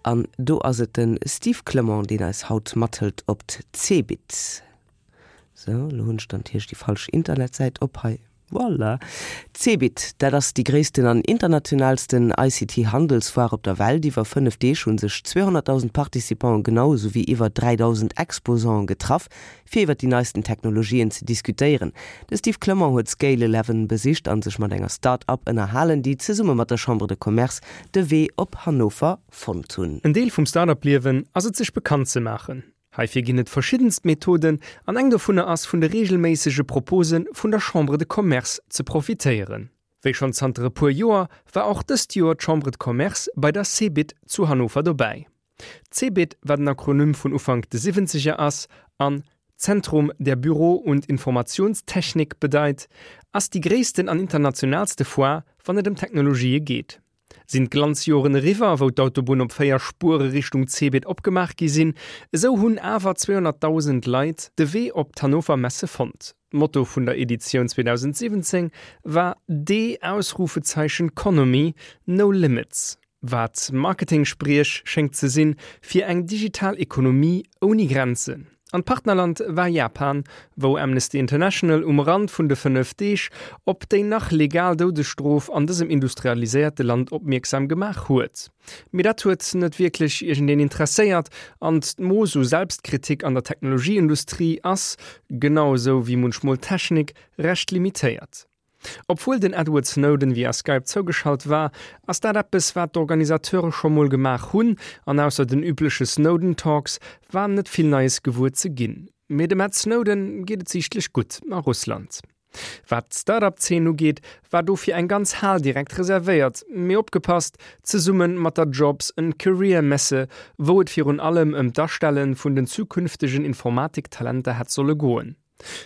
An do ass et de Steve Clement, deen eis haut mathëlt op d'Cebit. Sou, elo hunn ech dann natierlech déi falsch Internetsäit op hei. Voilà! D'Cebit, dat ass déi gréissten an internationaalsten ICT-Handelsfoire op der Welt. Iwwer 5 Deeg hu sech 200.000 Participanten, genau esou wéi iwwer 3.000 Exposanten getraff, fir iwwer déi neisten Technologien ze diskutéieren. De Steve Clement huet Scale Eleven besicht a sech mat enger Start-up ënnerhalen, déi zesumme mat der Chambre de Commerce de Wee op Hannover fonnt hunn. En Deel vum Start-up-Liewen ass et sech bekannt ze maachen. Heifir ginn et verschiddenst Methoden an eng dovunner ass vun de reegelméissege Propose vun der Chambre de Commerce ze profitéieren. Wéi schonn zanter e puer Joer war och dëst Joer d'Chambre de Commerce bei der CeBIT zu Hannover dobäi. D'CeBIT, wat en Akronym vun Ufank de Siwwenzeger ass an Zentrum der Büro und Informationstechnik bedeit, ass déi gréissten an internationaalste Foire wann et ëm Technologië geet. Sinn d'Glanzjoren eriwwer, wou d'Autobunn op 4 Spuere Richtung Cebit opgemaach gi sinn, esou hunn awer 200.000 Leit de Wee op d'Hannover Messe fonnt. D'Motto vun der Editioun 2017 war D-Conomy, No Limits, wat Marketing-Spriech schéngt ze sinn fir eng digital Ekonomie ouni Grenzen. An d'Partnerland war Japan, wou Amnesty International um Rand vun de 5 Deeg op déi nach legal Doudesstrof an dësem industrialiséierte Land opmierksam gemaach huet. Mee dat huet net wierklech iergendeen interesséiert an d'Mooss u Selbstkritik an der Technologieindustrie ass, genau esou wéi munchmol d'Technik, recht limitéiert. Obwuel den Edward Snowden via Skype zougeschalt war, ass dat eppes wat d'Organisateure scho mol gemaach hunn, an ausser den übleche Snowden Talks war net vill Neies gewuer ze ginn. Mee dem Ed Snowden geet et siichtlech gutt a Russland. Wat d'Start-up Zeen ugeet, war dofir eng ganz Hal direkt reservéiert, mee opgepasst, zesumme mat der Jobs and Career Messe, wou et virun allem ëm d'Astelle vun den zukünftegen Informatik-Talenter hätt solle goen.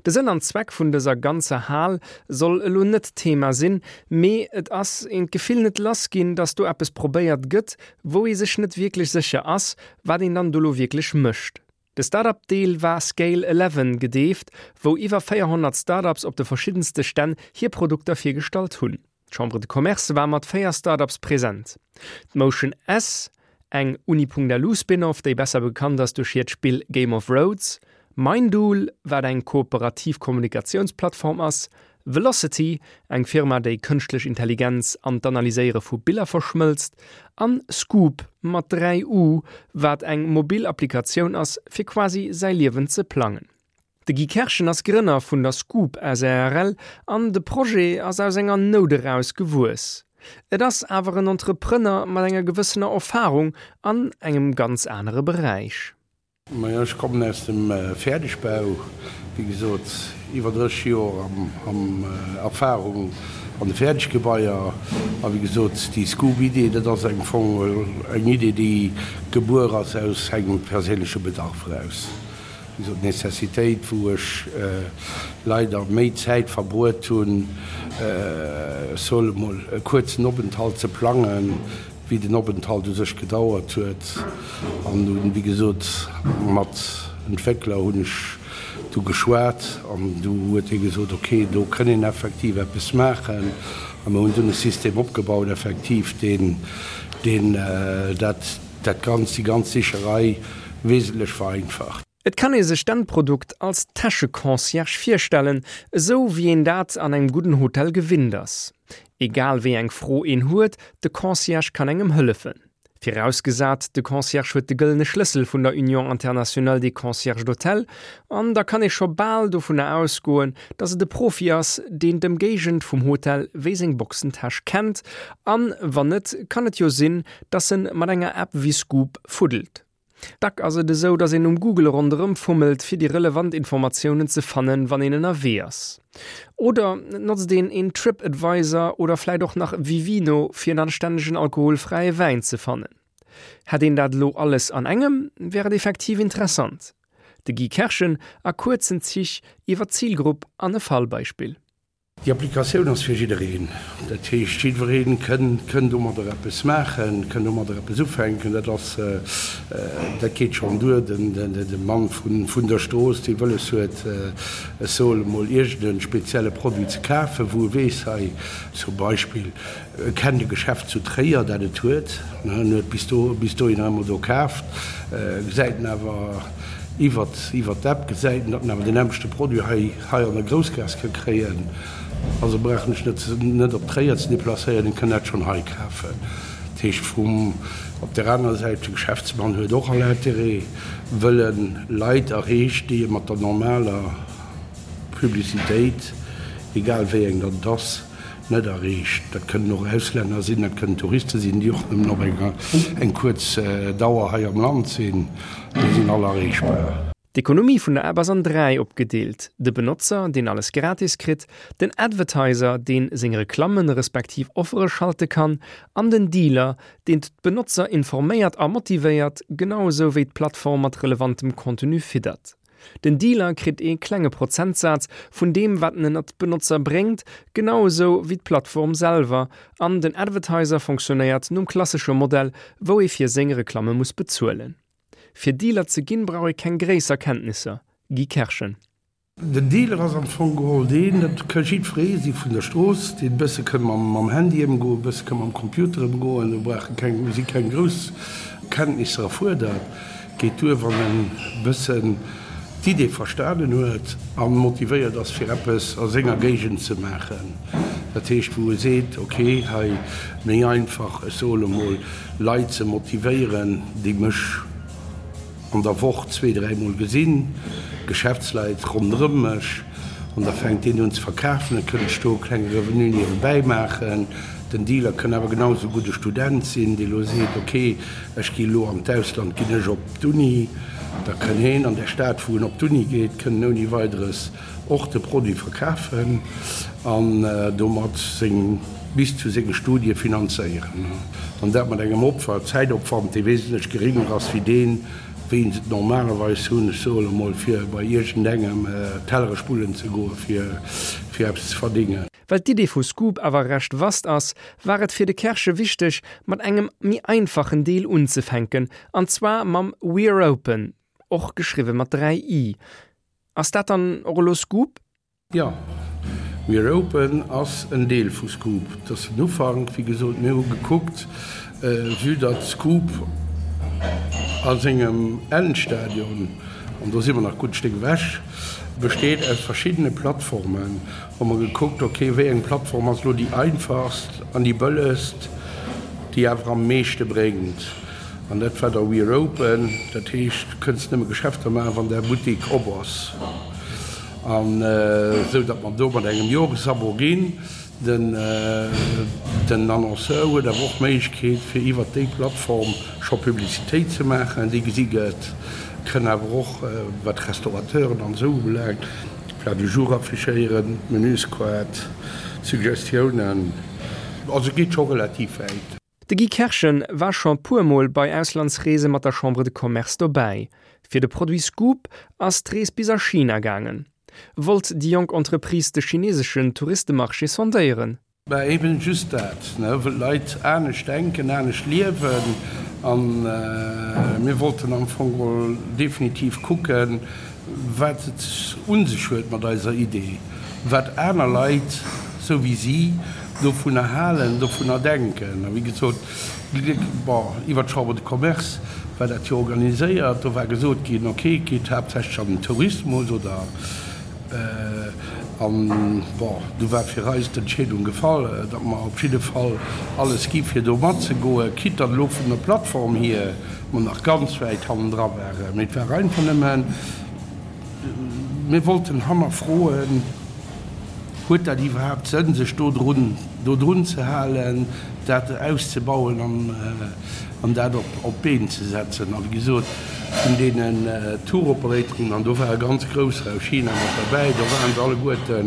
De Sënn an Zweck vun dëser ganzer Hal soll elo net Thema sinn, mee et ass een d'Gefill net lass ginn, dass do eppes probéiert gëtt, wou ee sech net wierklech sécher ass, wat een dann do lo wierklech mécht. De Startup-Deel war Scale Eleven gedeeft, wou iwwer 400 Startups op de verschiddenste Stänn hir Produkter virgestallt hunn. D'Chambre de Commerce war mat 4 Start-ups present. D'Motion S, eng Uni.lu-Spin-off, déi besser bekannt ass duerch hiert Spill Game of Roads, Mindool, wat eng kooperativ Kommunikatiounsplattform ass, Velocity, eng Firma, déi kënschtlech Intelligenz an d'Analyséiere vu Biller verschmëlzt, an Scoop, mat 3 U, wat eng mobil Applikatioun ass, fir quasi säi Liewen ze plangen. De Guy Kerschen ass Grënner vun der Scoop sàrl an de Projet ass aus enger Nout eraus gewuess. Et ass awer en Entrepreneur mat enger gewëssener Erfarung an engem ganz anere Beräich. Majo, ech kommen aus dem Fäerdegbau, wéi gesot iwwer 30 Joer am Erfarung an de Fäerdeggebaier. A wéi gesot, déi Scoop-Idee, dat ass am Fong eng Idee, déi gebuer ass aus engem perséinleche Bedarf eraus. Wéi gesot, d'Necessitéit, wou ech leider méi Zäit verbruet hunn, ech soe mol, e kuerzen Openthalt ze plangen, wéi den Openthalt u sech gedauert huet. An dunn, wéi gesot, mat Entwéckler hunn ech du geschwat an du huet hie gesot, ok, do kënn een effektiv eppes maachen. A mir hunn dunn e System opgebaut, effektiv, deen, deen dat, dat Ganzt, déi ganz Sicherei wesentlech vereinfacht. Et kann ee sech d'Endprodukt als Täscheconcierge virstellen, esou wéi een dat an engem gudden Hotel gewinnt ass. Egal wéi eng Fro een huet, de Concierge kann engem hëllefen. Virausgesat, de Concierge huet de gëllene Schlëssel vun der Union Internationale des Concierges d'Hôtel, an da kann ee scho bal dovunner ausgoen, dass et e Profi ass, deen d'Ëmgéigend vum Hotel wéi seng Boxentäsch kennt, an wann net, kann et jo sinn, dass en mat enger App wéi Scoop fuddelt. Dack ass et esou, dass een um Google ronderëm fummelt, fir déi relevant Informatiounen ze fannen, wann een ënnerwee ass. Oder et notzt een een Trip Advisor oder vläit och nach Vivino, fir en anstännegen alkoholfräie Wäin ze fannen. Hätt een dat elo alles an engem, wär et effektiv interessant. De Guy Kerschen a kuerzen Zich iwwer d'Zilgrupp an e Fallbeispill. Déi Applikatioun ass fir jiddereen. Dat heescht, jiddweree kënn domadder eppes maachen, kënn domadder eppes ufänken. Dat ass, dat geet schonn duer, de Mann vun der Strooss, dee wëlles huet, ech soe emol, iergend e spezielle Produit ze kafen, wou e weess, hei zum Beispill, e kennt e Geschäft zu Tréier, dat et huet, en huet bis do, bis dohinner ëmmer do kaaft, gesäit en awer iwwert d'App, gesäit en, datt en awer deen nämmlechte Produit hei, hei an der Groussgaass ka kréien, also brauch en sech net net op Tréier ze deplacéieren, en kann dat schonn hei kafen. Dat heescht vum, op där anerer Säit, de Geschäftsmann huet och all Intérêt, wëll en Leit erreecht, déi e mat der normaler Publicitéit, egal wéi eng datt et ass, net erreecht. Dat kënnen och Auslänner sinn, dat kënnen Touriste sinn, déi och nëmmen op eng eng kuerz Dauer hei am Land sinn, déi sinn all erreechbar. D'Ekonomie vun der App ass an 3 opgedeelt, de Benotzer, deen alles gratis kritt, den Advertiser, deen seng Reklammen respektiv Offere schalte kann, an den Dealer, deen d'Benotzer informéiert a motivéiert, genau esou wéi d'Plattform mat relevantem Contenu fiddert. Den Dealer kritt ee klenge Prozentsaz vun deem wat en ënnert d'Benotzer bréngt, genau esou wéi d'Plattform selwer, an den Advertiser fonctionnéiert nom klassesche Modell, wou ee fir seng Reklamme muss bezuelen. Fir Dealer ze ginn, brauch ee keng gréisser Kenntnisser. Guy Kerschen. Den Dealer ass am Fong geholl deen, dat ka jiddweree si vun der Strooss, deen e bësse ka mam Handy ëmgoen, e bësse ka mam Computer ëmgoen. Do brauche keng, si keng grouss Kenntnisser erfuerdert. Geet duer, wann en e bëssen d'Idee verstanen huet a motivéiert ass, fir eppes a senger Géigend ze maachen. Dat heescht, wou e seet, ok, hei méi einfach, ech soe lo mol, Leit ze motivéieren, déi mech an der Woch zweet, dräimol gesinn, Geschäftsleit ronderëm mech, an da fänkt deen un ze verkafen, da kënnt ech do e klenge Revenu niewebäi maachen. Den Dealer kënn awer genau esou gutt e Student sinn, dee lo seet, ok, ech gi lo an d'Ausland, ginn ech op d'Uni, da kënn heen an där Stad, wou en op d'Uni geet, kënn en ouni Weideres och de Produit verkafen an domat seng bis zu senge Studie finanzéieren, an dat mat engem Opfer, Zäitopwand, dee wesentlech geringer ass wéi deen, wéi se et normalerweis hunn, ech soe lo mol, fir bei iergendengem Tellere spullen ze goen, fir fir eppes ze verdingen. Well d'Idee vu Scoop awer recht vast ass, war et fir de Kersche wichteg, mat engem méi einfachen Deel unzefänken, an zwar mam We're Open, och geschriwwe mat 3 i. Ass dat dann och elo Scoop? Jo, We're Open ass en Deel vu Scoop. Et ass den Ufank. Wéi gesot, mir hu gekuckt, vue datt Scoop a sengem Endstadion, an do si mer nach gutt Stéck ewech, besteet aus verschiddene Plattformen, hu mer gekuckt, ok, wéi eng Plattform ass elo déi einfachst an déi bëllegst, déi awer am meeschte bréngt. An dat war da We're Open, dat heescht, du kënns nëmme Geschäfter maachen, wann däi Buttek op ass. An esou datt mer do mat engem Joresabo ginn. Den Annonceur huet awer och d'Méiglechkeet, fir iwwert déi Plattform scho Publicitéit ze maachen, déi gesi gëtt. Kënn awer och, wat Restaurateuren an esou ubelaangt, Plat du jour affichéieren, Menüskaart, Suggestiounen. Also geet scho relativ wäit. De Guy Kerschen war scho puer Mol bei Auslandsreese mat der Chambre de Commerce dobäi. Fir de Produit Scoop ass d'Rees bis a China gaangen. Wollt déi jonk Entreprise de chineseschen Touristemarché sondéieren? Bah eben just dat, ne, wëll d'Leit anescht denken, anescht liewen an mir wollten am Fong geholl definitiv kucken, wat et un sech huet mat eiser Idee, wat aner Leit, sou wéi si, dovunner halen, dovunner denken. A wéi gesot, bon, iwwer d'Chambre de Commerce war dat jo organiséiert, do war gesot ginn, ok, et geet haaptsächlech an den Tourismus oder, an bon, du war fir eis d'Entscheedung gefall, datt mer op jidde Fall alles gi fir do matzegoen, quitte datt elo vun der Plattform hier mer nach ganz wäit hannendra waren. Mee et war einfach nëmmen, mir wollten hannerfroen, Huet dat iwwerhaapt Sënn, sech do drun, do drun ze halen, dat auszebauen an, an dat op, op d'Been ze setzen? A wéi gesot, vun deenen Tour-Operatoren, an do war e ganz grousser aus China mat derbäi, do waren se alleguerte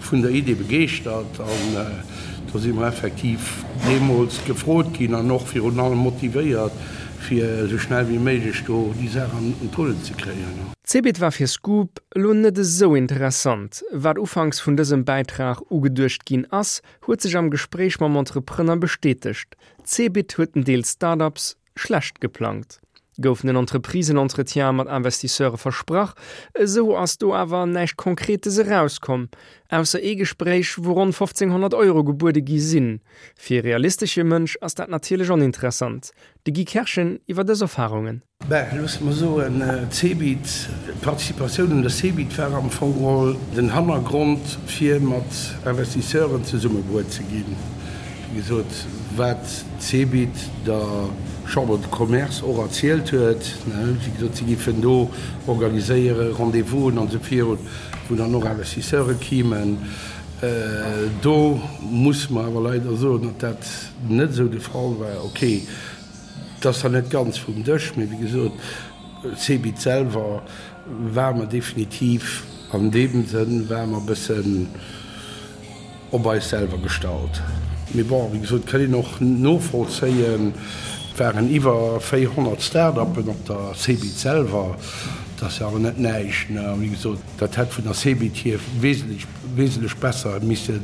vun der Idee begeeschtert an do si mer effektiv deemools gefrot ginn an och virun allem motivéiert, fir esou schnell wéi méiglech do déi Saach an d'Rullen ze kréien. D'Cebit war fir Scoop elo net esou interessant. Wat ufanks vun dësem Bäitrag ugeduecht ginn ass, huet sech am Gespréich mam Entrepreneur bestätegt, D'Cebit huet en Deel Start-ups schlecht geplangt. Goufen en Entreprisen-Entretien mat Investisseure versprach, esou ass do awer näischt Konkretes erauskomm, ausser ee Gespréich, wou ronn 1.500 Euro gebuede gi sinn. Fir e realistesche Mënsch ass dat natierlech oninteressant. De Guy Kerschen iwwer dës Erfarungen. Ben, loosse mer soen, d'Cebit, d'Participatioun un der Cebit war am Fong geholl den Hannergrond, fir mat Investisseuren zesummebruet ze ginn. Wéi gesot, wat d'Cebit der Chambre de Commerce och erzielt huet, wéi gesot, si géifen do organiséiere Rendez-vousen an esou virun, wou dann och Investisseure kimen. Do musse mer awer leider soen, datt dat net esou de Fall war. Okay. Et ass zwar net ganz vum Dësch, mee wéi gesot, Cebit selwer ware mer definitiv an deem Sënn ware mer e bëssen op eis selwer gestallt. Mee bon, wéi gesot, kann een och novollzéien, et waren iwwer 400 Start-uppen op der Cebit selwer, dat ass jo awer net näischt. A wéi gesot, dat hätt vun der Cebit hier wesentlech, wesentlech besser misse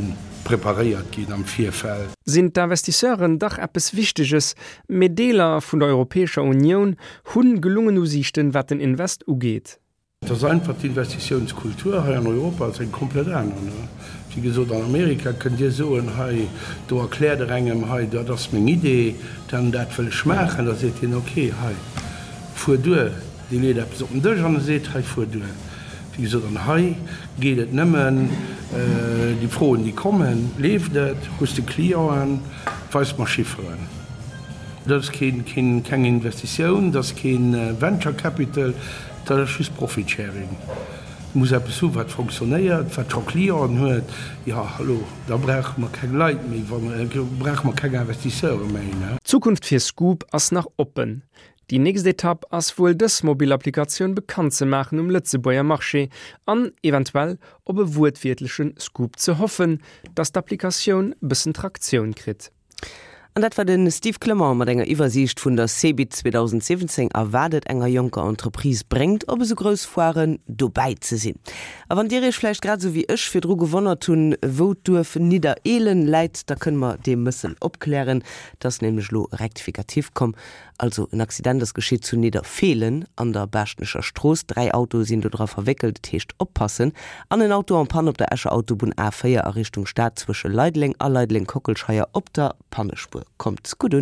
preparéiert ginn am Virfeld. Sinn d'Investisseuren dach eppes Wichteges, mee Deeler vun der Europäescher Unioun hunn gelungen Usiichten, wat den Invest ugeet. Et ass einfach, d'Investitiounskultur hei an Europa ass eng komplett aner. Wéi gesot, an Amerika kënnt Dir soen, hei, do erkläert Der engem, hei, dat ass meng Idee, dat an dat wëll ech maachen, da seet hien, okay, hei, fuer duer. Dee leet eppes op den Dësch an e seet, hei, fuer duer. Wéi gesot, an hei geet et nëmmen, déi Froen, déi kommen, Leeft et? Hues de Clienten? Weis mer Chifferen. Dat ass keen, keng Investitioun, dat ass kee Venture Capital, dat ass just Profit Sharing. Du muss eppes hu wat fonctionnéiert, wat scho Clienten huet. Jo, hallo, da brauche mer keng Leit méi, brauche mer keng Investisseure méi. D'Zukunft fir Scoop ass nach oppen. Déi nächst Etapp ass wuel dës mobil Applikatioun bekannt ze maachen um Lëtzebuerger Marché an eventuell op e wuertwiertleche Scoop ze hoffen, dass d'Applikatioun bëssen Traktioun kritt. An dat war de Steve Clement mat enger Iwwersiicht vun der CeBIT 2017 a wat et enger jonker Entreprise bréngt, op esou grouss Foiren dobäi ze sinn. A wann Dir Iech vläicht grad esou wéi ech virdru gewonnert hunn, wou d'Duerf Niddereelen läit, da kënne mer dee Mëssel opklären. Et ass nämlech elo e Rectificatif komm. Also en Accident ass geschitt zu Nidderfeelen an der Baaschtnecher Strooss. 3 Autoe sinn do dra verwéckelt, et heescht oppassen. An en Auto en panne op der Escher Autobunn A 4 a Richtung Stad zwësche Leideleng a Leideleng-Kockelscheier op der Pannespuer. Kommt gutt un.